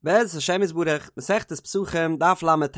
בעזרת השם יתברך, מסכת פסחים, דף ל"ט.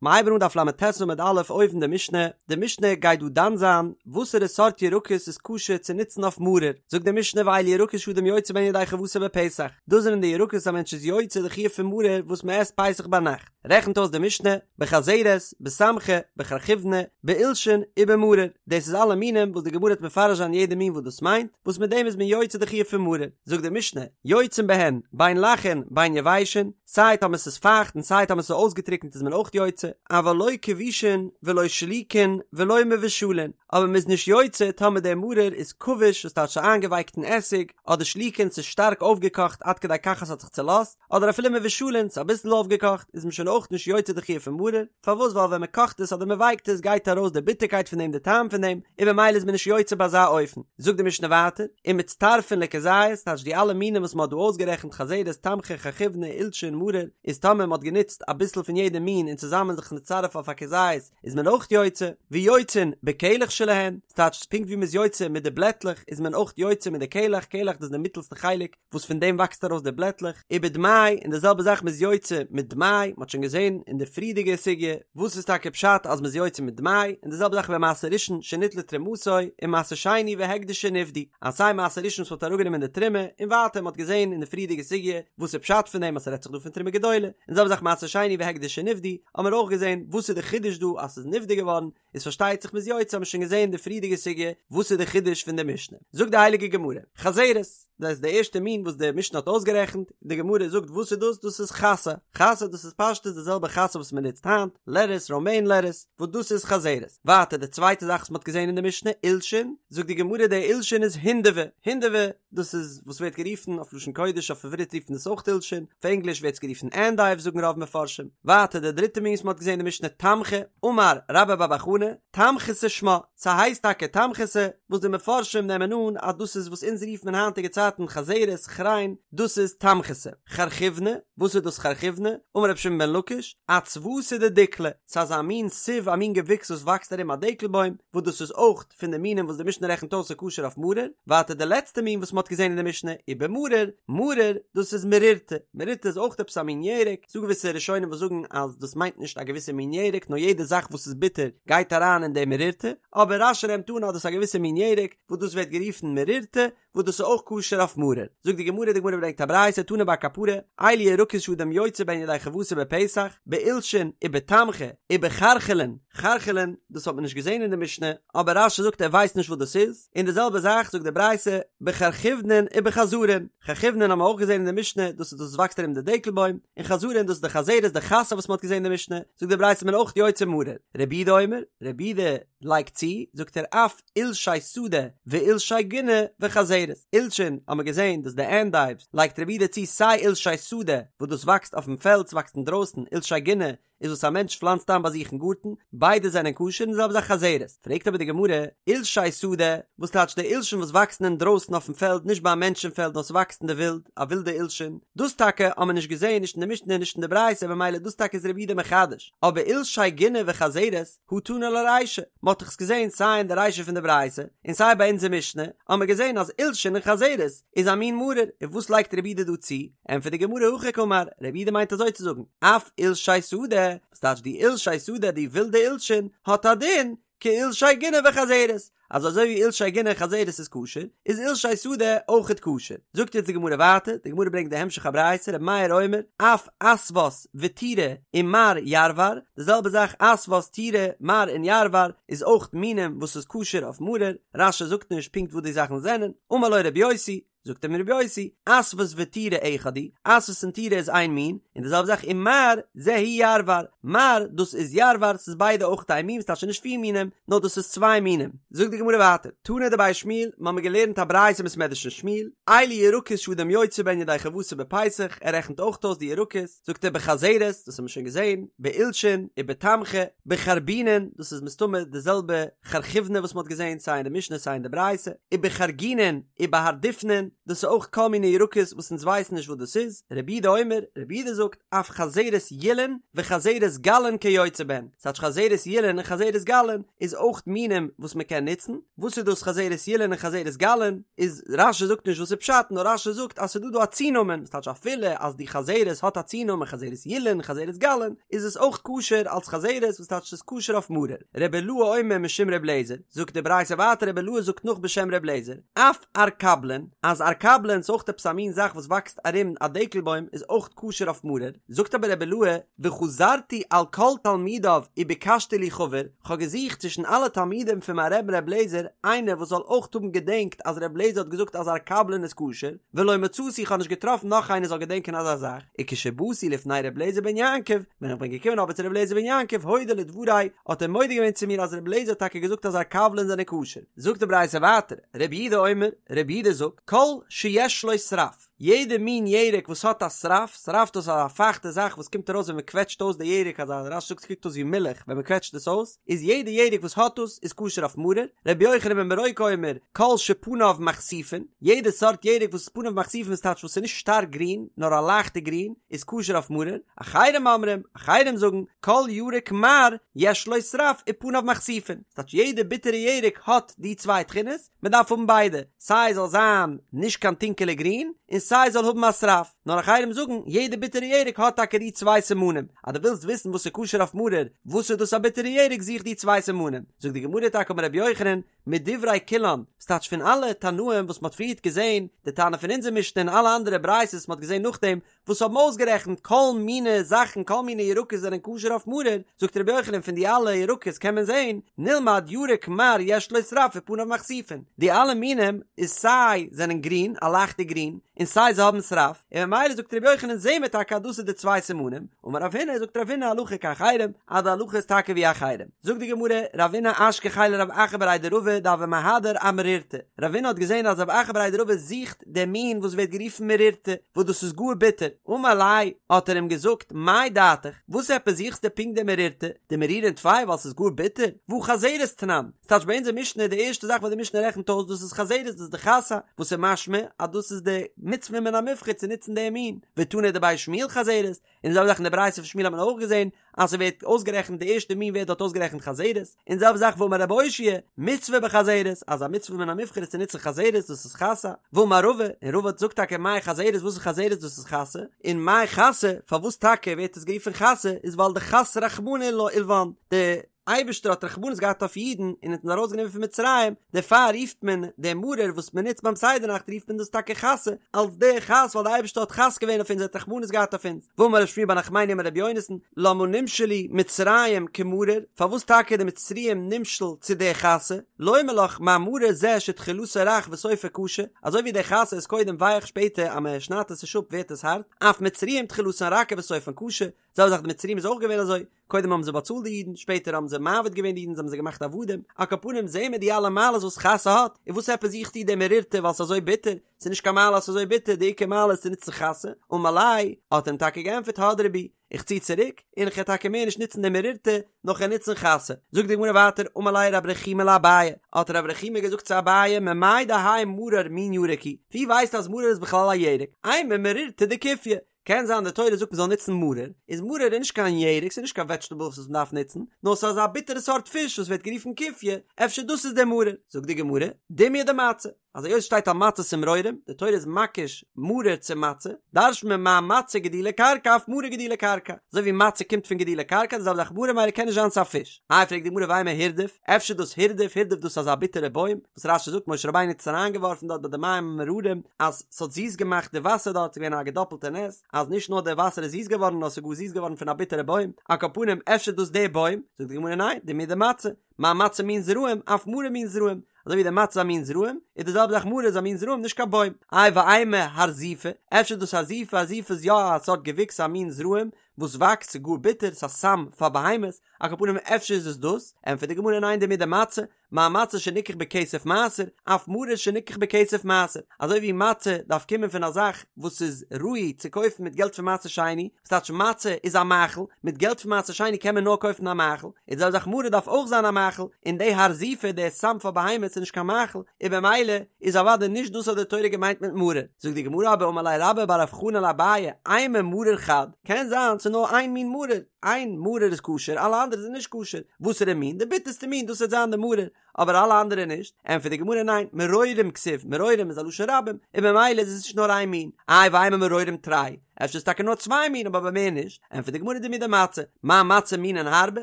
מ'הייבן אן דף ל"ט עמוד א' אויבן די משנה, די משנה גייט דא דן זיין וואסערע סארט ירקות איז כשר צו נוצן אויף מרור, זאגט די משנה ואלו ירקות שאדם יוצא בהן ידי חובתו בפסח, דאס זענען די ירקות א מענטש איז יוצא די חיוב פון מרור וואס מען עסט פסח ביינאכט, רעכנט אויס די משנה, בחזרת, בתמכא, בחרחבינא, בעולשין, ובמרור, דאס איז אלע מינים וואס די גמרא וועט מפרש זיין יעדע מין וואס דאס מיינט, וואס מיט דעם איז מען יוצא די חיוב פון מרור. זאגט די משנה, יוצאין בהן, בין לחין, בין יבשין, סיי טאמער ס'איז פייכט און סיי טאמער ס'איז אויסגעטריקנט איז מען אויך יוצא, אבל לא כבושין ולא שלוקין ולא מבושלין, אבער מ'איז נישט יוצא טאמער דער מרור איז כבוש וואס טייטש ס'איז איינגעווייקט אין עסיג, אדער שלוקין ס'איז שטארק אויפגעקאכט עד כדי כך אז ס'האט זיך צולאזט, אדער אפילו מבושלין ס'איז אביסל אויפגעקאכט איז מען שוין אויך נישט יוצא די חיוב פון מרור, פארוואס ווייל ווען מ'קאכט עס אדער מ'ווייקט עס גייט ארויס די ביטערקייט פון דעם די טעם פון דעם, און במילא איז מען נישט יוצא ביי אזא אופן. זאגט די משנה ווייטער, ומצטרפין לכזית, טייטש די אלע מינים וואס מ'האט דא אויסגערעכנט חזרת, תמכא, חרחבינא, עולשין, מרור, איז טאמער מ'האט גענוצט אביסל פון יעדע מין און צוזאמען זיך מצטרף אויף א כזית איז מען אויך יוצא, ויוצאין בקלח שלהן, ס'טייטש פונקט ווי מ'איז יוצא מיט די בלעטלעך איז מען אויך יוצא מיט די קלח, קלח דאס איז די מיטעלסטע חלק, וואס פון דעם וואקסט ארויס די בלעטלעך, ובדמאי, און די זעלבע זאך מ'איז יוצא מיט דמאי, מ'האט שוין געזען אין די פריערדיגע סוגיא וואס איז טאקע פשט אז מ'איז יוצא מיט דמאי, און די זעלבע זאך במעשר ראשון שניטלה תרומתו, און מעשר שני והקדש שנפדו, אז סיי מעשר ראשון וואס מ'האט אראפגענומען די תרומה, און ווייטער מ'האט געזען אין די פריערדיגע סוגיא וואס איז פשט פון דעם אז ס'רעדט זיך דא פון תרומה גדולה, און די זעלבע זאך מעשר שני והקדש שנפדו, האמיר אויך געזען וואס איז די חידוש דא אז ס'איז נפדה געווארן, איז פארשטייט זיך מ'איז יוצא האמיר שוין געזען די פריערדיגע סוגיא וואס איז די חידוש פון די משנה, זאגט די הייליגע גמרא, חזרת, דאס איז די ערשטע מין וואס די משנה האט אויסגערעכנט, די גמרא זאגט וואס איז דאס, דאס איז חסה, חסה דאס איז פשטות די זעלבע חסה וואס מען נוצט היינט, לעטעס, ראמעין לעטעס, וואס דאס איז חזרת, ווייטער די צווייטע זאך וואס מען האט געזען אין די משנה, עולשין, זאגט די גמרא די עולשין איז הינדבי, הינדבי, דאס איז וואס ווערט גערופן אויף לשון קודש אויף עברית רופט מען עס אויך עולשין, אויף ענגליש ווערט עס גערופן ענדייוו זאגן רוב מפרשים. ווייטער די דריטע מין וואס מען האט געזען אין די משנה תמכא, אמר רבה בר בר חנה, תמכתא שמה, ס'הייסט טאקע תמכתא, וואס די מפרשים נעמען אן אז דאס איז וואס אונז רופט מען היינטיגע צייטן חזרת, כריין, דאס איז תמכתא. חרחבינא, וואס איז דאס חרחבינא? אמר רבי שמעון בן לקיש, אצוותא דדיקלא, ס'איז אזא מין סיב א מין געוויקס וואס וואקסט ארום א דקל בוים, וואס דאס איז אויך פון די מינים וואס די משנה רעכנט אויס איז כשר אויף מרור, ווייטער די לעצטע מין וואס מען האט געזען אין די משנה, ובמרור, מרור, דאס איז מרירתא, מרירתא איז אויך עפעס א מין ירק, ס'דא געוויסע ראשונים וואס זאגן אז דאס מיינט נישט א געוויסע מין ירק נאר יעדע זאך וואס איז ביטער גייט אריין אין די מרירתא, אבער רש"י נעמט אן אז דאס איז א געוויסע מין ירק וואס דאס ווערט גערופן מרירתא, וואס דאס איז אויך כשר אויף מרור. זאגט די גמרא, די גמרא ברענגט א ברייתא, תני בר קפרא, אלו ירקות שאדם יוצא בהן ידי חובתו בפסח, בעולשין ובתמכא ובחרחלין, חרחלין, דאס האט מען נישט געזען אין די משנה, אבער רש"י זאגט ער ווייסט נישט וואס דאס איז, און די זעלבע זאך זאגט די ברייתא, בחרחבינן ובחזרין, חרחבינן האבן מיר אויך געזען אין די משנה, דאס איז דאס וואס וואקסט ארום די דקל בוים, און חזרין דאס איז די חזרת די חסה וואס מען האט געזען אין די משנה, זאגט די ברייתא מען אויך יוצא מרור, רבי יהודה אומר, רבי יהודה לייגט צו, זאגט ער אף עולשי שדה ועולשי גינה וחזרת, עולשין האט מען געזען דאס די ענדייווס, לייגט רבי יהודה צו סיי עולשי שדה וואס דאס וואקסט אויפן פעלד ס'וואקסט אינדרויסן, עולשי גינה איז וואס א מענטש פלאנצט איין ביי זיך אין גארטן, ביידע זענען כשר און די זעלבע זאך חזרת, פרעגט אבער די גמרא, עולשי שדה, וואס טייטש די עולשין וואס וואקסן אינדרויסן אויפן פעלד נישט ביי א מענטש אין פעלד נאר ס'וואקסט אין די ווילד, א ווילדע עולשין, דאס טאקע האט מען נישט געזען נישט אין די משנה נישט אין די ברייתא במילא דאס טאקע איז רבי יהודה מחדש, אבער עולשי גינה וחזרת, הא תנא ליה רישא, מען האט דאך עס געזען סיי אין די רישא פון די ברייתא און סיי ביי אונזער משנה, האט מען געזען אז עולשין און חזרת איז א מין מרור, און וואס לייגט רבי יהודה דא צו? ענטפערט די גמרא הכי קאמר, רבי יהודה מיינט אזוי צו זאגן, אף עולשי שדה, וואס טייטש די עולשי שדה די ווילדע עולשין, האט א דין כעולשי גינה וחזרת, אז אזוי ווי עולשי גינה און חזרת איז כשר, איז עולשי שדה אויכעט כשר. זאגט יעצט די גמרא ווייטער, די גמרא ברענגט די המשך הברייתא, רבי מאיר אומר, אף עשות ותירא ומר ירוור, די זעלבע זאך עשות תירא מר און ירוור איז אויך מינים וואס איז כשר אויף מרור, רש"י זאגט נישט פונקט וואס די זאכן זענען, אמר לו רבי יוסי, זאגט אים רבי יוסי, עשות ותירא אחד הוא, עשות און תירא איז איין מין, און די זעלבע זאך ומר זה הוא ירוור, מר דאס איז ירוור, ס'איז ביידע אויך איין מין, ס'טייטש נישט פיר מינים, נאר דאס איז צוויי מינים. זאגט די גמרא ווייטער, תנא דבי שמואל, מ'האמיר געלערנט א ברייתא אין בית מדרש פון שמואל, אלו ירקות שאדם יוצא בהן ידי חובתו בפסח, ער רעכנט אויך אויס די ירקות, זאגט ער בחזרת, דאס האבן מיר שוין געזען, בעולשין, ובתמכא, בחרבינין, דאס איז מסתמא די זעלבע חרחבינא וואס מ'האט געזען סיי אין די משנה סיי אין די ברייתא, ובחרגינין, ובהרדופנין. דאס איז אויך כל מיני ירקות וואס אונז ווייסן נישט וואס דאס איז, רבי יהודה אומר, רבי יהודה זאגט, אף חזרת ילין וחזרת גלין כיוצא בהן, ס'טייטש חזרת ילין און חזרת גלין איז אויך מינים וואס מען קען נוצן, וואס איז דאס חזרת ילין און חזרת גלין, איז רש"י זאגט נישט וואס איז פשט, נאר רש"י זאגט אז ס'איז דא דא א צונאמען, ס'טייטש אפילו אז די חזרת האט א צונאמען חזרת ילין חזרת גלין, איז עס אויך כשר אלס חזרת וואס טייטש ס'איז כשר אויף מרור. רבי אילעא אומר משום רבי אליעזר, זאגט די ברייתא ווייטער רבי אילעא זאגט נאך בשם רבי אליעזר, אף ערקבלין, אז ערקבלין איז אויך עפעס א מין זאך וואס וואקסט ארום א דקל בוים איז אויך כשר אויף מרור, זאגט אבער רבי אילעא, וחזרתי על כל תלמידיו וביקשתי לי חבר, כ'האב געזוכט צווישן אלע תלמידים פון מיין רבי'ן רבי אליעזר איינער וואס זאל אויך האבן געדענקט אז רבי אליעזר האט געזאגט אז ערקבלין איז כשר, ולא מצאתי איך האב נישט געטראפן נאך איינער זאל געדענקען אזא זאך, וכשבאתי לפני רבי אליעזר בן יעקב, ווען איך בין געקומען אבער צו רבי אליעזר בן יעקב הודה לדברי, האט ער מודה געווען צו מיר אז רבי אליעזר האט טאקע געזאגט אז ערקבלין זענען כשר. זאגט די ברייתא ווייטער, רבי יהודה אומר, רבי יהודה זאגט, כל שיש לו שרף, יעדע מין ירק וואס האט א שרף, שרף דאס איז א פייכטע זאך וואס קומט ארויס ווען מען קוועטשט אויס די ירק, אזא רש"י זאגט ס'קוקט אויס ווי מילך ווען מען קוועטשט עס אויס, איז יעדע ירק וואס האט דאס איז כשר אויף מרור, רבי יוחנן בן ברוקה אומר, כל שפניו מכסיפין, יעדע סארט ירק וואס איז פניו מכסיפין איז טייטש וואס איז נישט שטארק גרין, נאר א לייכטע גרין, איז כשר אויף מרור, אחרים אומרים, אחרים זאגן, כל ירק מר יש לו שרף ופניו מכסיפין, ס'טייטש יעדע ביטערע ירק האט די צוויי תכונות, מען דארף האבן ביידע, סיי זאל זיין נישט קיין טונקעלע גרין, און סיי זאל האבן א שרף, נאר אחרים זאגן, יעדע ביטערע ירק האט טאקע די צוויי סימנים, אז דו ווילסט וויסן וואס איז כשר אויף מרור, וואס איז דאס א ביטערע ירק זוך די צוויי סימנים, זאגט די גמרא טאקע אמר רבי יוחנן, מדברי כולן, ס'טייטש פון אלע תנאים וואס מ'האט פריערט געזען, די תנא פון אונזער משנה און אלע אנדערע ברייתות וואס מ'האט געזען נאכדעם, וואס האבן אויסגערעכנט כל מיני זאכן כל מיני ירקות זענען כשר אויף מרור, זאגט רבי יוחנן פון די אלע ירקות קען מען זען, נלמד ירק מר יש לו שרף ופניו מכסיפין, די אלע מינים איז סיי זענען גרין, א לייכטע גרין, און סיי זיי האבן שרף, און ממילא זאגט רבי יוחנן זעהן מיר טאקע אז דאס איז די צוויי סימנים, אמר רב הונא זאגט רב הונא הלכה כאחרים, אז די הלכה איז טאקע ווי אחרים. זאגט די גמרא, רבינא אשכחיה לרב אחא בריה דרבא דהוה מהדר אמרירתא, רבינא האט געזען אז רב אחא בריה דרבא זוכט דעם מין וואס ווערט גערופן מרירתא, וואס דאס איז גאר ביטער, אמר ליה, האט ער אים געזאגט, מאי דעתיך, וואס עפעס זוכסטו פונקט די מרירתא, דמרירין טפי ווייל ס'איז גאר ביטער, והא חזרת תנן, ס'טייטש ביי אונזער משנה די ערשטע זאך וואס די משנה רעכנט אויס דאס איז חזרת דאס איז די חסה, וואס איז משמע אז דאס איז די מצוה מן המובחר צו נוצן דעם מין, ותנא דבי שמואל חזרת, און די זעלבע זאך אין די ברייתא פון שמואל האט מען אויך געזען אז ס'ווערט אויסגערעכנט די ערשטע מין ווערט דארט אויסגערעכנט חזרת, און די זעלבע זאך ואמר רב אושעיא, מצוה בחזרת, אז א מצוה מן המובחר איז צו נוצן חזרת דאס איז חסה, ואמר רבא, און רבא זאגט טאקע מאי חזרת וואס איז חזרת דאס איז חסה, און מאי חסה פארוואס טאקע ווערט עס גערופן חסה איז ווייל דחס רחמנא עילוון, די אייבערשטער האט רחמנות געהאט אויף אידן און האט אונז ארויסגענומען פון מצרים, דערפאר רופט מען דעם מרור וואס מען נוצט ביים סדר נאכט רופט מען דאס טאקע חסה, אלס די חס ווייל די אייבערשטער האט חס געווען אויף אונז ער האט רחמנות געהאט אויף אונז, ואמר רב שמואל בר נחמני אמר רבי יונתן, למה נמשלו מצרים כמרור, פארוואס טאקע די מצריים נמשל צו די חסה, לומר לך מה מרור זה שתחילתו רך וסופו קשה, אזוי ווי די חסה איז קודם ווייך שפעטער אז מען שניידט עס נישט אפ ווערט עס הארט, אף מצרים תחילתן רכה וסופן קשה, זעלבע זאך די מצריים איז אויך געווען אזוי, קודם האבן זיי באצאלט די אידן, שפעטער האבן זיי מעביד געווען די אידן, זיי האבן זיי געמאכט עבדים, על כל פנים זעהן מיר די אלע מעלות וואס חסה האט, און וואס עפעס זוכסטו די מרירתא ווייל ס'איז אזוי ביטער, ס'איז נישט קיין מעלה אז ס'איז אזוי ביטער, די עיקר מעלה איז צו נוצן חסה, אמר ליה, האט ער אים טאקע געענטפערט הדרי בי, איך צי צוריק, און איך וועל טאקע מער נישט נוצן די מרירתא, נאר כ'וועל נוצן חסה. זאגט די גמרא ווייטער, אמר ליה רב רחומי לאביי, האט רב רחומי געזאגט צו אביי, ממאי דהאי מרור מין ירק הוא, ווי ווייסטו אז מרור איז בכלל א ירק, אימא מרירתא דכופיא, קען זיין די תורה זאגט מ'זאל נוצן מרור, איז מרור איז נישט קיין ירק, ס'איז נישט קיין וועדזשטעבל וואס מ'דארף נוצן, נאר ס'איז אזא ביטערע סארט פיש וואס ווערט גערופן כופיא, אפשר דאס איז דער מרור. זאגט די גמרא, דומיא דמצה, אז היות שטייט על מצות ומרורים, די תורה איז מקיש מרור צו מצה, דרש'נט מען מה מצה גידולי קרקע אף מרור גידולי קרקע, אזוי ווי מצה קומט פון גידולי קרקע די זעלבע זאך מרור ממילא קען נישט זיין ס'איז א פיש. איי פרעגט די גמרא ואימא הירדוף, אפשר דאס הירדוף, הירדוף דאס איז אזא ביטערע בוים, וואס רש"י זאגט משה רבינו האט עס אריינגעווארפן דארט ביי די מים המאררים, אז ס'האט זיס געמאכט די וואסער דארט, ס'איז געווען א געדאפלטע נס, אז נישט נאר די וואסער איז זיס געווארן, נאר ס'איז גאר זיס געווארן פון א ביטערע בוים, על כל פנים אפשר דאס די בוים, זאגט די גמרא ניין, דומיא דמצה, מה מצה מין זרעים, אף מרור מין זרעים, אזוי ווי די מצה איז א מין זרעים, איז די זעלבע זאך מרור איז א מין זרעים נישט קיין בוים. איי ואימא הרזיפא, אפשר דאס הרזיפא, הרזיפא איז יא א סארט געוויקס א מין זרעים, וואס וואקסט ס'איז גאר ביטער, ס'איז א סם פאר בהמות, על כל פנים אפשר איז עס דאס, ענטפערט די גמרא ניין דמידי מצה, מה מצה שניקח בכסף מעשר, אף מרור שניקח בכסף מעשר, אזוי ווי מצה דארף קומען פון א זאך וואס איז ראוי צו קויפן מיט געלט פון מעשר שני, וואס טייטש מצה איז א מאכל, מיט געלט פון מעשר שני קען מען נאר קויפן א מאכל, איז די זעלבע זאך מרור דארף אויך זיין א מאכל, און די הרזיפא די סם פאר בהמות איז נישט קיין מאכל, און במילא איז אוודאי נישט דאס האט די תורה געמיינט מיט מרור. זאגט די גמרא אבער אמר ליה רבה בר רב חנן לאביי, אימא מרור חד, קען זיין ס'איז נאר איין מין מרור, איין מרור איז כשר אלע אנדערע זענען נישט כשר, וואסערע מין? די ביטערסטע מין דאס וועט זיין די מרור, אבער אלע אנדערע נישט, ענטפערט די גמרא ניין, מרורים כתיב, מרורים איז א לשון רבים, און במילא איז עס נישט נאר איין מין, איי ואימא מרורים תרי, אפשר איז טאקע נאר צוויי מין אבער מער נישט, ענטפערט די גמרא דמידי מצה, מה מצה מינין הרבה,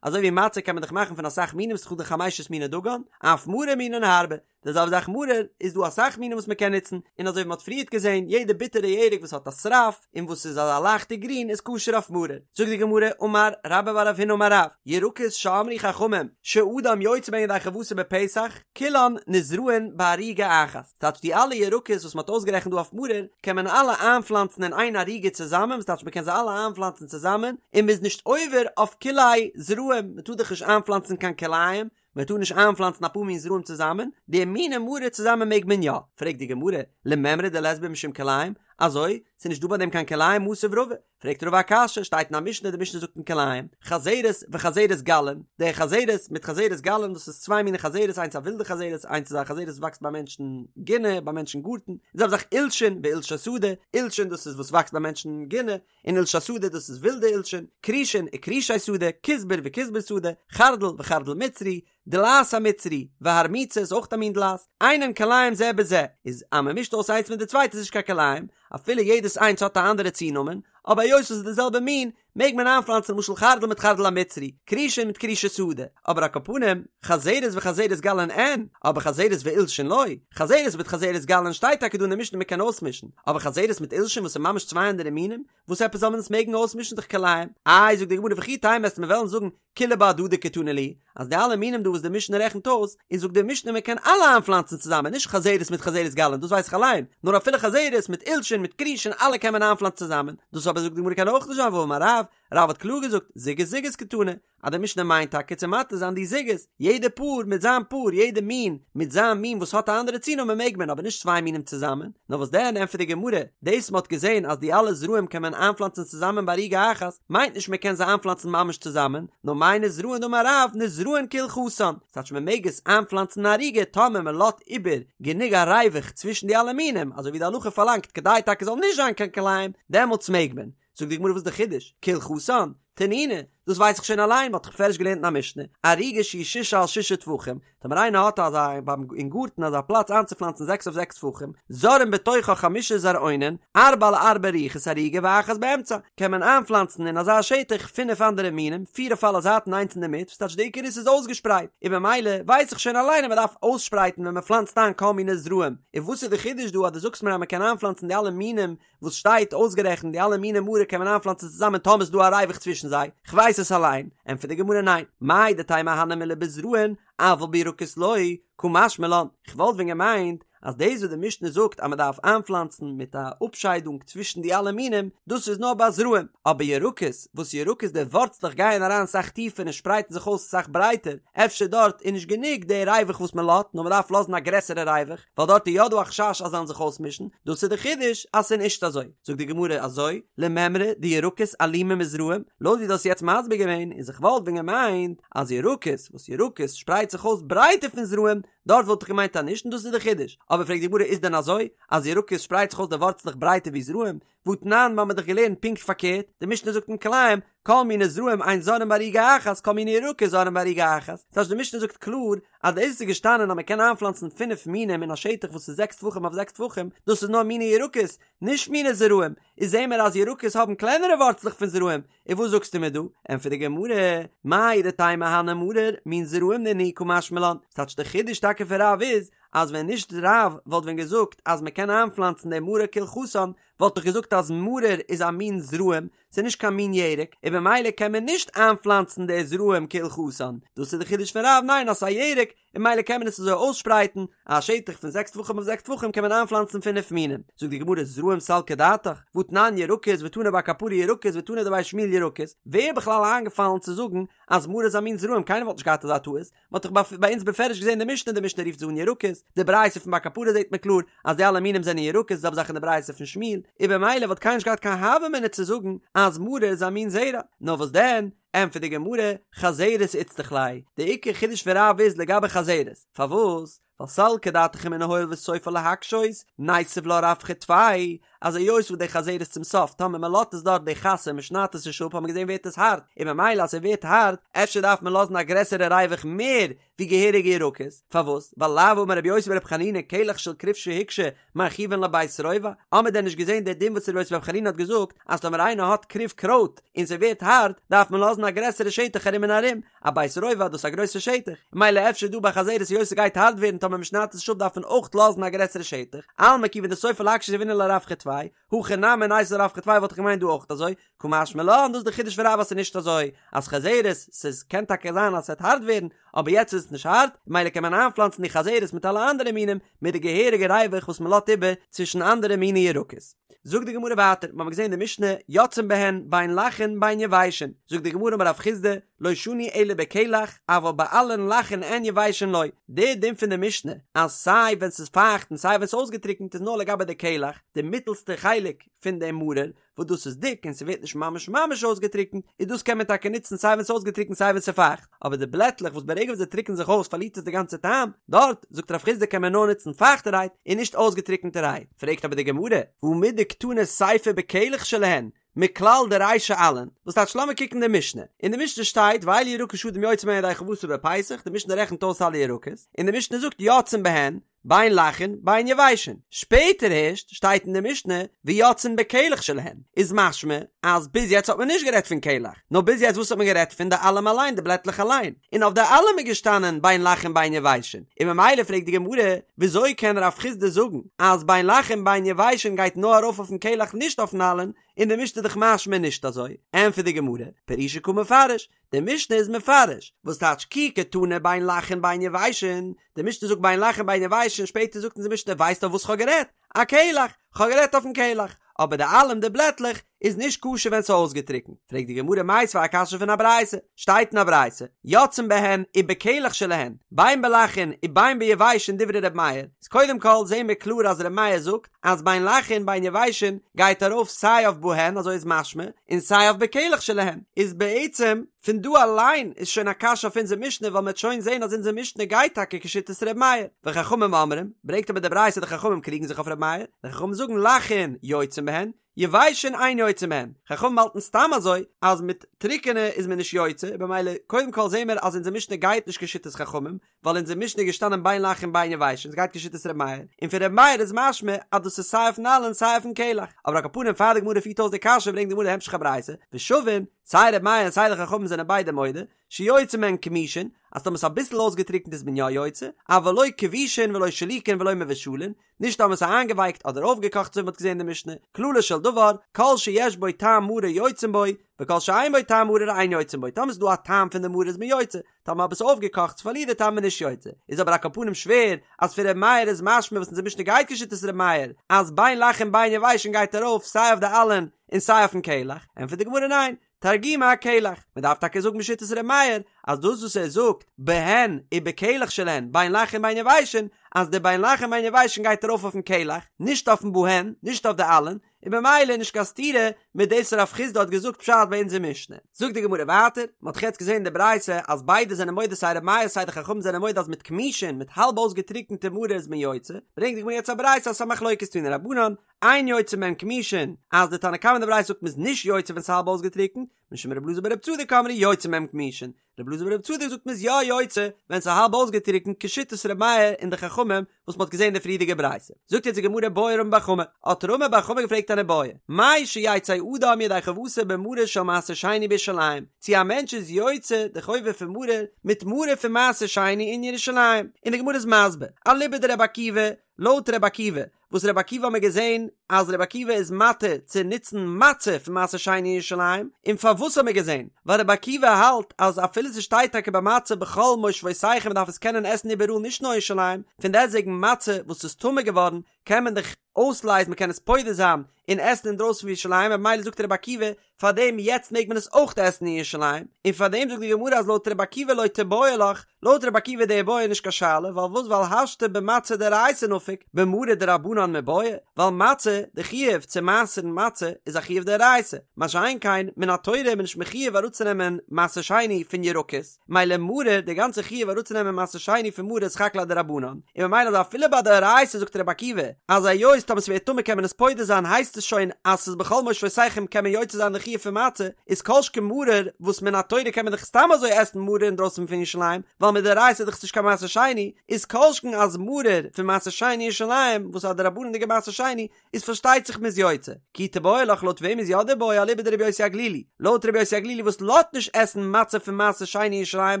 אזוי ווי מצה קען מען דאך מאכן פון אסאך מינים ס'איז דאך דא חמשת מיני דגן, אף מרור מינין הרבה, די זעלבע זאך מרור, איז דא אסאך מינים וואס מען קען נוצן, און אזוי ווי מען האט פריערט געזען, יעדע ביטערע ירק וואס האט א שרף, און וואס איז אזא לייכטע גרין איז כשר אויף מרור. זאגט די גמרא, אמר רבה בר רב הונא אמר רב, ירקות שאמרו חכמים שאדם יוצא בהן ידי חובתו בפסח, כולן נזרעין בערוגה אחת. ס'טייטש די אלע ירקות וואס מען האט אויסגערעכנט דא אויף מרור, קען מען אלע איינפלאנצן אין איין ערוגה צוזאמען, וואס טייטש מען קען זיי אלע איינפלאנצן צוזאמען, און מען איז נישט עובר אויף כלאי זרעים, מען טאר דאך נישט איינפלאנצן קיין כלאים, מען טאר נישט איינפלאנצן אפאר מין זרעים צוזאמען, די מיני מרור צוזאמען מעג מען יא, פרעגט די גמרא, למימרא דלית בהו משום כלאים, אזוי? ס'איז נישט דא ביי דעם קיין כלאים מתיב רבא, פרעגט רבא א קשיא, שטייט אין א משנה, די משנה זאגט אין כלאים, חזרת וחזרת גלין, די חזרת מיט חזרת גלין דאס איז צוויי מיני חזרת איינס א ווילדע חזרת איינס איז א חזרת וואס וואקסט ביי מענטשן גינה ביי מענטשן גארטן, די זעלבע זאך עולשין ועולשי שדה, עולשין דאס איז וואס וואקסט ביי מענטשן גינה, און עולשי שדה דאס איז ווילדע עולשין, כרישין וכרישי שדה, כוסבר וכוסבר שדה, חרדל וחרדל מצרי, דלעת המצרי, והרמוצה איז אויך א מין דלעת, אינן כלאים זה בזה, איז אז מען מישט אויס איינס מיט די צווייטע איז נישט קיין כלאים, אפילו יעדעס איינס האט א אנדערע צונאמען, אבער היות עס איז די זעלבע מין, מעג מען איינפלאנצן למשל חרדל מיט חרדל המצרי, כרישין מיט כרישי שדה, אבער על כל פנים, חזרת וחזרת גלין אין, אבער חזרת ועולשין לא, חזרת מיט חזרת גלין שטייט טאקע דא אין די משנה מען קען אויסמישן, אבער חזרת מיט עולשין וואס איז ממש צוויי אנדערע מינים, וואס עפעס זאל מען עס מעגן אויסמישן דאך כלאים? איי זאגט די גמרא וכי תימא וועסט מיר וועלן זאגן כולהו בהדדי קתני להו, אז די אלע מינים דא וואס די משנה רעכנט אויס, איז זאגט די משנה מען קען אלע איינפלאנצן צוזאמען נישט חזרת מיט חזרת גלין דאס ווייס איך אליין, נאר אפילו חזרת מיט עולשין מיט כרישין אלע קען מען איינפלאנצן צוזאמען, דאס אבער זאגט די גמרא קען אויך נישט זיין והאמר רב, רב האט קלאר געזאגט זוגות זוגות קתני, אז די משנה מיינט טאקע צו מתיר זיין די זוגות, יעדע פאר מיט זיין פאר, יעדע מין מיט זיין מין וואס האט א אנדערע צונאמען מעג מען, אבער נישט צוויי מינים צוזאמען, נאר וואס דען ענטפערט די גמרא, דאס מ'האט געזען אז די אלע זרעים קען מען איינפלאנצן צוזאמען בערוגה אחת, מיינט נישט מען קען זיי איינפלאנצן ממש צוזאמען, נאר מאי נזרעין דאמר רב נזרעין כהלכתן, ס'טייטש מען מעג עס איינפלאנצן אין ערוגה טאמער מען לאזט איבער גענוג א ריווח צווישן די אלע מינים, אזוי ווי די הלכה פארלאנגט כדי טאקע זאל נישט זיין קיין כלאים, דעמאלטס מעג מען. זאגט די גמרא וואס איז די חידוש? כהלכתן? תנינא, דאס ווייס איך שוין אליין, מ'האט דאך בפירוש געלערנט אין א משנה, ערוגה שהיא ששה על ששה טפחים, טאמער איינער האט אזא ביים אין גארטן אזא פלאץ איינצופלאנצן זעקס אויף זעקס טפחים, זורעין בתוכה חמשה זרעונין, ארבע על ארבע רוחות הערוגה ואחת באמצע, קען מען איינפלאנצן אין אזא שטח פינף אנדערע מינים, פיר אויף אלע זייטן איינס אינדערמיט, וואס טייטש די עיקר איז ס'איז אויסגעשפרייט, און במילא ווייס איך שוין אליין אז מ'דארף אויסשפרייטן ווען מ'פלאנצט איין כל מיני זרעים, און וואס איז די חידוש דא אז דו זאגסט מיר אז מ'קען איינפלאנצן די אלע מינים וואס שטייט אויסגערעכנט די אלע מיני מרור קען מען איינפלאנצן צוזאמען טאמער איז דא א ריווח צווישן זיי, כ'ווייס עס אליין, ענטפערט די גמרא ניין, מהו דתימא הני מילי בזרעין אבל בירקות לא, קא משמע לן, כ'וואלט ווען געמיינט אז דאס וואס די משנה זאגט אז מ'דארף איינפלאנצן מיט א אפשיידונג צווישן די אלע מינים, דאס איז נאר ביי זרעים, אבער ירקות, וואס ירקות די ווארצלעך גייען אריין סאך טיפער און שפרייטן זיך אויס סאך ברייטער, אפשר דארט איז נישט גענוג די ריווח וואס מ'לאזט, נאר מ'דארף לאזן א גרעסערע ריווח. ווייל דארט איז יא דא א חשש אז זיי זאלן זיך אויסמישן, דאס איז די חידוש אז ס'איז נישט אזוי. זאגט די גמרא אזוי, למימרא דירקות אלימא מזרעים, לויט ווי דו האסט יעצט מסביר געווען, איז איך וואלט ווען געמיינט אז ירקות, וואס ירקות שפרייט זיך אויס ברייטער פון זרעים, דארט וואלט איך געמיינט אז נישט און דאס איז די חידוש. אבער פרעגט די גמרא איז דען אזוי אז ירקות שפרייט זיך אויס די ווארצלעך ברייטער ווי זרעים, והתנן, מיר האבן דאך געלערנט פונקט פארקערט, די משנה זאגט אין כלאים, כל מיני זרעים אין זורעין בערוגה אחת, כל מיני ירקות זורעין בערוגה אחת. ס'הייסט די משנה זאגט קלאר אז דאס איז געשטאנען אז מ'קען איינפלאנצן פינף מינים אין א שטח וואס איז זעקס טפחים אויף זעקס טפחים, דאס איז נאר מיני ירקות, נישט מיני זרעים, איז זעהן מיר אז ירקות האבן קלענערע ווארצלעך פון זרעים, און וואס זאגסטו מיר דא? ענטפערט די גמרא, מהו דתימא הני מרור, מין זרעים נינהו קא משמע לן, ס'טייטש די חידוש טאקע פון רב איז, אז ווען נישט רב וואלט ווען געזאגט אז מ'קען איינפלאנצן די מרור כהלכתן, וואלט איך געזאגט אז מרור איז א מין זרעים, ס'איז נישט קיין מין ירק, און במילא קען מען נישט איינפלאנצן די זרעים כהלכתן, דאס איז די חידוש פון רב, ניין אז ס'איז א ירק, און ממילא קען מען עס אזוי אויסשפרייטן, א שטח פון זעקס טפחים אויף זעקס טפחים קען מען איינפלאנצן פינף מינים. זאגט די גמרא זרעים סלקא דעתך, והתנן ירקות ותנא בר קפרא ירקות ותנא דבי שמואל ירקות, ווער איז בכלל איינגעפאלן צו זאגן אז מרור איז א מין זרעים קיינער וואלט נישט געהאט אזא טעות, מען האט דאך ביי אונז בפירוש געזען די משנה, די משנה רופט זיי אן ירקות, די ברייתא פון בר קפרא זעט מען קלאר אז די אלע מינים זענען ירקות, די זעלבע זאך אין די ברייתא פון שמואל, און במילא וואלט קיינער נישט געהאט קיין הוה אמינא צו זאגן אז מרור איז א מין זרע, נאר וואס דען, ענטפערט די גמרא, חזרת איצטריך ליה, די עיקר חידוש פון רב איז לגבי חזרת, פארוואס? ווייל סלקא דעתך אמינא הואיל וסופה להקשות, ניתיב לה רווחא טפי, אז היות וואס די חזרת צום סוף טאמער מען לאזט עס דארט די חסה מען שניידט עס נישט אפ האט מען געזען ווערט עס הארט, און ממילא אז ס'ווערט הארט אפשר דארף מען לאזן א גרעסערע ריווח מער ווי געהעריגע ירקות, פארוואס? ווייל לאו אמר רבי יוסי ברבי חנינא קלח של כרוב שהוקשה מרחיבין לו בית רובע, האמער דען נישט געזען די דין וואס רבי יוסי ברבי חנינא האט געזאגט אז טאמער איינער האט כרוב קרויט און ס'ווערט הארט דארף מען לאזן א גרעסערע שטח ארום און ארום, א בית רובע דאס איז א גרויסע שטח, ממילא אפשר דא ביי חזרת היות ס'גייט הארט ווערן טאמער מ'שניידט עס נישט אפ דארף מען אויך לאזן א גרעסערע שטח, אלמא כיוון דסופה להקשות יהבינן לה רווחא טפי, הכא נמי ניתיב לה רווחא טפי וואלט איך געמיינט דא אויך אזוי, קא משמע לן דאס איז די חידוש פון רב אז ס'איז נישט אזוי אז חזרת ס'איז קען טאקע זיין אז ס'וועט הארט ווערן אבער יעצט איז עס נישט הארט ממילא קען מען איינפלאנצן די חזרת מיט אלע אנדערע מינים מיט די געהעריגע ריווח וואס מ'לאזט איבער צווישן אנדערע מיני ירקות. זאגט די גמרא ווייטער, מ'האמיר געזען אין די משנה, יוצאין בהן בין לחין בין יבשין, זאגט די גמרא אמר רב חסדא, לא שנו אלא בקלח, אבל בעלין לחין אין יבשין לא, די דין פון די משנה אז סיי ווען ס'איז פייכט און סיי ווען ס'איז אויסגעטריקנט איז נאר לגבי די קלח, די מיטעלסטע חלק פון די מרור, וואס דאס איז דיק און ס'ווערט נישט ממש ממש אויסגעטריקנט, איז דאס קען מען טאקע נוצן סיי ווען ס'איז אויסגעטריקנט סיי ווען ס'איז פייכט, אבער די בלעטלעך וואס ברגע וואס זיי טריקענען זיך אויס פארלירט עס די גאנצע טעם, דארט, זאגט רב חסדא קען מען נאר נוצן פייכטערהייט און נישט אויסגעטריקענטערהייט. פרעגט אבער די גמרא, והא מדקתני סיפא בקלח שלהן, מכלל דרישא עלין, וואס טייטש לאמיר קוקן די משנה, אין די משנה שטייט ואלו ירקות שאדם יוצא בהן ידי חובתו בפסח, די משנה רעכנט אויס אלע ירקות, און די משנה זאגט יוצאין בהן, בין לחין בין יבשין, שפעטער הערשט שטייט אין די משנה ויוצאין בקלח שלהן, איז משמע אז ביז יעצט האט מען נישט גערעדט פון קלח, נאר ביז יעצט וואס האט מען גערעדט פון די עלים אליין די בלעטלעך אליין, און אויף די עלים איז געשטאנען בין לחין בין יבשין, און ממילא פרעגט די גמרא וויאזוי קען רב חסדא זאגן אז בין לחין בין יבשין גייט נאר ארויף אויפן קלח נישט אויפן עלין, אין די משנה איז דאך משמע נישט אזוי, ענטפערט די גמרא, פרושי קא מפרש, די משנה איז מפרש, וואס טייטש כי קתני בין לחין בין יבשין, די משנה זאגט בין לחין בין יבשין, שפעטער זאגט אונז די משנה ווייסט אויף וואס כ'האב גערעדט? אקלח, כ'האב גערעדט אויפן קלח, אבער די עלים די בלעטלעך איז נישט כשר ווען ס'איז אויסגעטריקנט, פרעגט די גמרא מיתיבי א קשיא פון א ברייתא, שטייט אין א ברייתא, יוצאין בהן ובקלח שלהן, בין בלחין ובין ביבשין דברי ר' מאיר, איז קודם כל זעהן מיר קלאר אז ר' מאיר זאגט אז בין לחין בין יבשין גייט ארויף סיי אויף בהן אזוי איז משמע און סיי אויף בקלח שלהן איז בעצם פון דא אליין איז שוין א קשיא אויף אונזער משנה ווייל מ'עט שוין זעהן אז אונזער משנה גייט טאקע כשיטת ר' מאיר וחכמים אומרים ברענגט אבער די ברייתא די חכמים קריגן זיך אויף ר' מאיר די חכמים זאגן לחין יוצאין בהן יבשין אין יוצאין בהן חכמים האלטן סתם אזוי אז מיט טריקענע איז מען נישט יוצא במילא קודם כל זעהן מיר אז אונזער משנה גייט נישט כשיטת חכמים ווייל אונזער משנה איז געשטאנען בין לחין בין יבשין עס גייט כשיטת ר' מאיר, און פון ר' מאיר איז משמע אז דאס איז סיי אויפן עלין סיי אויפן קלח, אבער על כל פנים פאר די גמרא פירט אויס די קשיא ברענגט די גמרא די המשך הברייתא, ושוין, סיי ר' מאיר און סיי די חכמים זענען ביידע מודה, שיוצאין בהן כמושין, אז טאמער ס'איז אביסל אויסגעטריקנט איז מען יא יוצא, אבל לא כבושין ולא שלוקין ולא מבושלין, נישט טאמער ס'איז איינגעווייקט אדער אויפגעקאכט אזוי ווי מ'האט געזען אין די משנה, כללו של דבר, כל שיש בו טעם מרור יוצאין בו, וכל שאין בו טעם מרור אין יוצאין בו, טאמער ס'איז דא א טעם פון די מרור איז מען יוצא, טאמער אבער ס'איז אויפגעקאכט ס'פארלירט די טעם איז מען נישט יוצא, איז אבער על כל פנים שווער אז פון ר' מאיר איז משמע וואס אונזער משנה גייט כשיטת ר' מאיר אז בין לחין בין יבשין גייט ארויף סיי אויף די עלין און סיי אויפן קלח, ענטפערט די גמרא ניין, תרגומא אקלח, מען דארף טאקע זאגן בשיטת ר' מאיר אז דאס וואס ער זאגט בהן ובקלח שלהן בין לחין בין יבשין אז די בין לחין בין יבשין גייט ארויף אויפן קלח נישט אויפן בהן נישט אויף די עלין, און במילא איז נישט קיין סתירה מיט דאס רב חסדא האט געזאגט פשט ביי אונזער משנה. זאגט די גמרא ווייטער, מען האט דאך יעצט געזען אין די ברייתא אז ביידע זענען מודה סיי ר' מאיר סיי די חכמים זענען מודה אז מיט כמושין מיט האלב אויסגעטריקענטע מרור איז מען יוצא, ברענגט די גמרא יעצט א ברייתא אז ס'איז א מחלוקת תנו רבנן, אין יוצאין בהן כמושין, אז די תנא קמא אין די ברייתא זאגט מען איז נישט יוצא ווען ס'איז האלב אויסגעטריקענט, משום ר' אלעזר בר' צדוק אמרו יוצאין בהן כמושין, ר' אלעזר בר' צדוק זאגט מ'איז יא יוצא ווען ס'איז האלב אויסגעטריקנט כשיטת ר' מאיר און די חכמים וואס מ'האט געזען אין די פריערדיגע ברייתא. זאגט יעצט די גמרא בעי רמי בר חמא, האט רמי בר חמא געפרעגט אן איבעיא, מהו שיצא אדם ידי חובתו במרור של מעשר שני בירושלים, צו א מענטש איז יוצא די חובה פון מרור מיט מרור פון מעשר שני אין ירושלים, און די גמרא איז מסביר, אליבא דרבי עקיבא, לויט ר' עקיבא, וואס ר' עקיבא האמיר געזען אז ר' עקיבא איז מתיר צו נוצן מצה פון מעשר שני אין ירושלים, און פארוואס האמיר געזען? ווייל ר' עקיבא האלט אז אפילו ס'שטייט טאקע ביי מצה בכל מושבותיכם מ'דארף עס קענען עסן איבעראל נישט נאר אין ירושלים, פון דעסטוועגן מצה וואס איז טמא געווארן קען מען דאך אויסלייזן מ'קען עס פודה זיין און עסן אינדרויסן פון ירושלים ממילא זאגט ר' עקיבא פאר דעם יעצט מעג מען עס אויך עסן אין ירושלים, און פאר דעם זאגט די גמרא אז לויט רבי עקיבא לא תיבעי לך, לויט רבי עקיבא די איבעיא נישט קיין שאלה, ווייל וואס ווייל השתא במצה דאורייתא נפיק, במרור דרבנן מיבעיא, ווייל מצה, די חיוב צו מעשר'ן מצה איז א חיוב דאורייתא, מה שאין כן מן התורה איז מען נישט מחויב אראפצונעמען מעשר שני פון ירקות. מילא מרור, די גאנצע חיוב אראפצונעמען מעשר שני פון מרור איז סך הכל א דרבנן, און ממילא אז אפילו ביי דאורייתא זאגט רבי עקיבא אז היות טאמער ס'ווערט טמא קען מען עס פודה זיין הייסט עס שוין אז ס'איז בכל מושבותיכם קען מען יוצא זיין די חיוב פון מצה, איז כל שכן מרור וואס מן התורה קען מען דאך סתם אזוי עסן מרור אינדרויסן פון ירושלים ווייל מדאורייתא איז דאך נישט קיין מעשר שני, איז כל שכן אז מרור פון מעשר שני אין ירושלים וואס איז א דרבנן'דיגע מעשר שני איז פארשטייט זיך מ'איז יוצא. כי תיבעי לך לויט וועם איז יא די בעיא אליבא דרבי יוסי הגלילי. לויט רבי יוסי הגלילי וואס לאזט נישט עסן מצה פון מעשר שני אין ירושלים,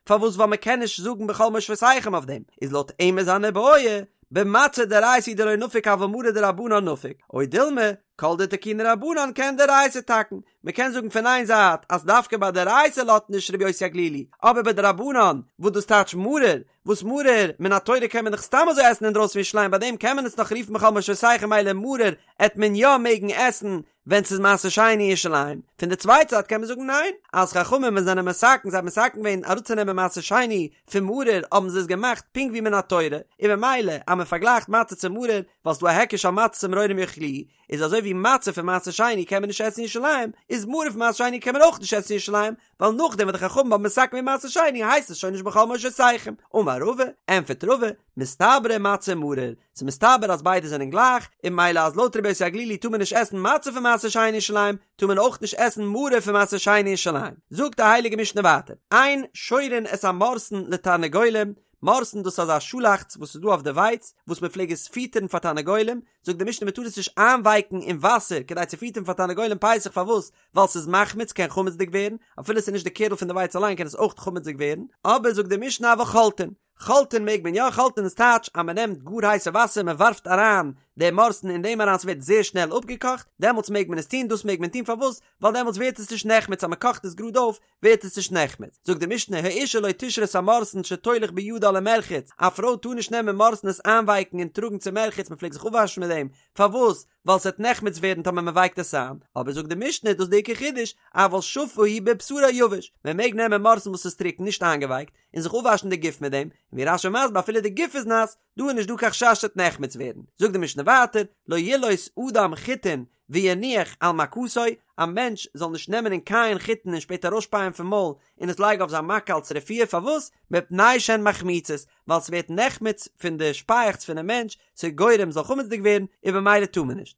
פארוואס ווייל מ'קען נישט זאגן בכל מושבותיכם אויף דעם, איז לויט אים איז אן איבעיא, במצה דאורייתא הוא דלא נפיק אבל מרור דרבנן נפיק, או דילמא, כל דתקינו רבנן כעין דאורייתא תקון, מ'קען זאגן פון איין זייט אז דווקא ביי דאורייתא לאזט נישט רבי יוסי הגלילי, אבער ביי דרבנן, וואס דאס טייטש מרור, וואס מרור, מן התורה קען מען דאך סתם אזוי עסן אינדרויסן פון ירושלים ביי דעם קען מען עס נאך רופן בכל מושבותיכם מילא מרור עט מען יא מעגן עסן ווען ס'איז מעשר שני אין ירושלים, פון די צווייטע זייט קען מען זאגן ניין, אז חכמים ווען זענען מתקן זיי האבן מתקן געווען אראפצונעמען מעשר שני פון מרור האבן זיי עס געמאכט פונקט ווי מן התורה, און ממילא אז מען פארגלייכט מצה צו מרור ווייל ס'דא א היקש על מצות ומרורים יאכלוהו, איז אזוי ווי מצה פון מעשר שני קען מען נישט עסן אין ירושלים, איז מרור פון מעשר שני קען מען אויך נישט עסן אין ירושלים, ווייל נאכדעם וואס די חכמים האבן מתקן געווען מעשר שני הייסט עס שוין נישט בכל מושבותיכם. אמר רבא, ענטפערט רבא, מסתברא מצה ומרור, ס'איז מסתבר אז ביידע זענען גלייך, און ממילא אז לויט רבי יוסי הגלילי טאר מען נישט עסן מצה פון מעשר שני אין ירושלים, טאר מען אויך נישט עסן מרור פון מעשר שני אין ירושלים. זאגט די הייליגע משנה ווייטער, אין שורין את המורסן לתרנגולים, מורסן דאס איז אזא שאלאכץ וואס איז דא אויף די ווייץ, וואס מען פלעג עס פיטערן פאר תרנגולים, זאגט די משנה מען טאר עס נישט איינווייקן אין וואסער כדי צו פיטערן פאר תרנגולים פסח פארוואס? ווייל ס'איז מחמיץ קען חמצ'דיג ווערן, אפילו ס'איז נישט די קערל פון די ווייץ אליין קען עס אויך חמצ'דיג ווערן, אבער זאגט די משנה אבל חולטין, חולטין מעג מען יא, חולטין איז טייטש אז מען נעמט גאר הייסע וואסער מען ווארפט אריין די מורסן אין דעם אריין ס'ווערט זייער שנעל אפגעקאכט, דעמאלטס מעג מען עס טון, דאס מעג מען טון פארוואס? ווייל דעמאלטס ווערט עס נישט נחמץ אז מען קאכט עס גראד אויף ווערט עס נישט נחמץ, זאגט די משנה האשה לא תשרה את המורסן שתוליך בידה למרחץ, א פרוי טאר נישט נעמען מורסן עס איינווייקן און טראגן צום מרחץ מען פלעגט זיך אפוואשן מיט דעם, פארוואס? ווייל ס'וועט נחמץ ווערן טאמער מען ווייקט עס איין, אבער זאגט די משנה דאס איז די עיקר חידוש, אבל שפה הוא בבשרה יבש, מען מעג נעמען מורסן וואס איז טרוקן נישט איינגעווייקט, און זיך אפוואשן די גוף מיט דעם, און ווי רש"י מסביר אפילו די גוף איז נאס, דא איז נישט דא קיין חשש ס'וועט נחמץ ווערן, זאגט די משנה ווייטער, לא ילעוס אדם חיטין ויניח על מכתו, א מענטש זאל נישט נעמען און קייען חיטן און שפעטער ארויסשפייען פון מויל און עס לייגן אויף זיין מכה אלס רפואה, פארוואס? מפני שהן מחמיצות, ווייל ס'ווערט נחמץ פון די שפייעכץ פונעם מענטש, ס'איז גורם ס'זאל חמצ'דיג ווערן, און במילא טאר מען נישט.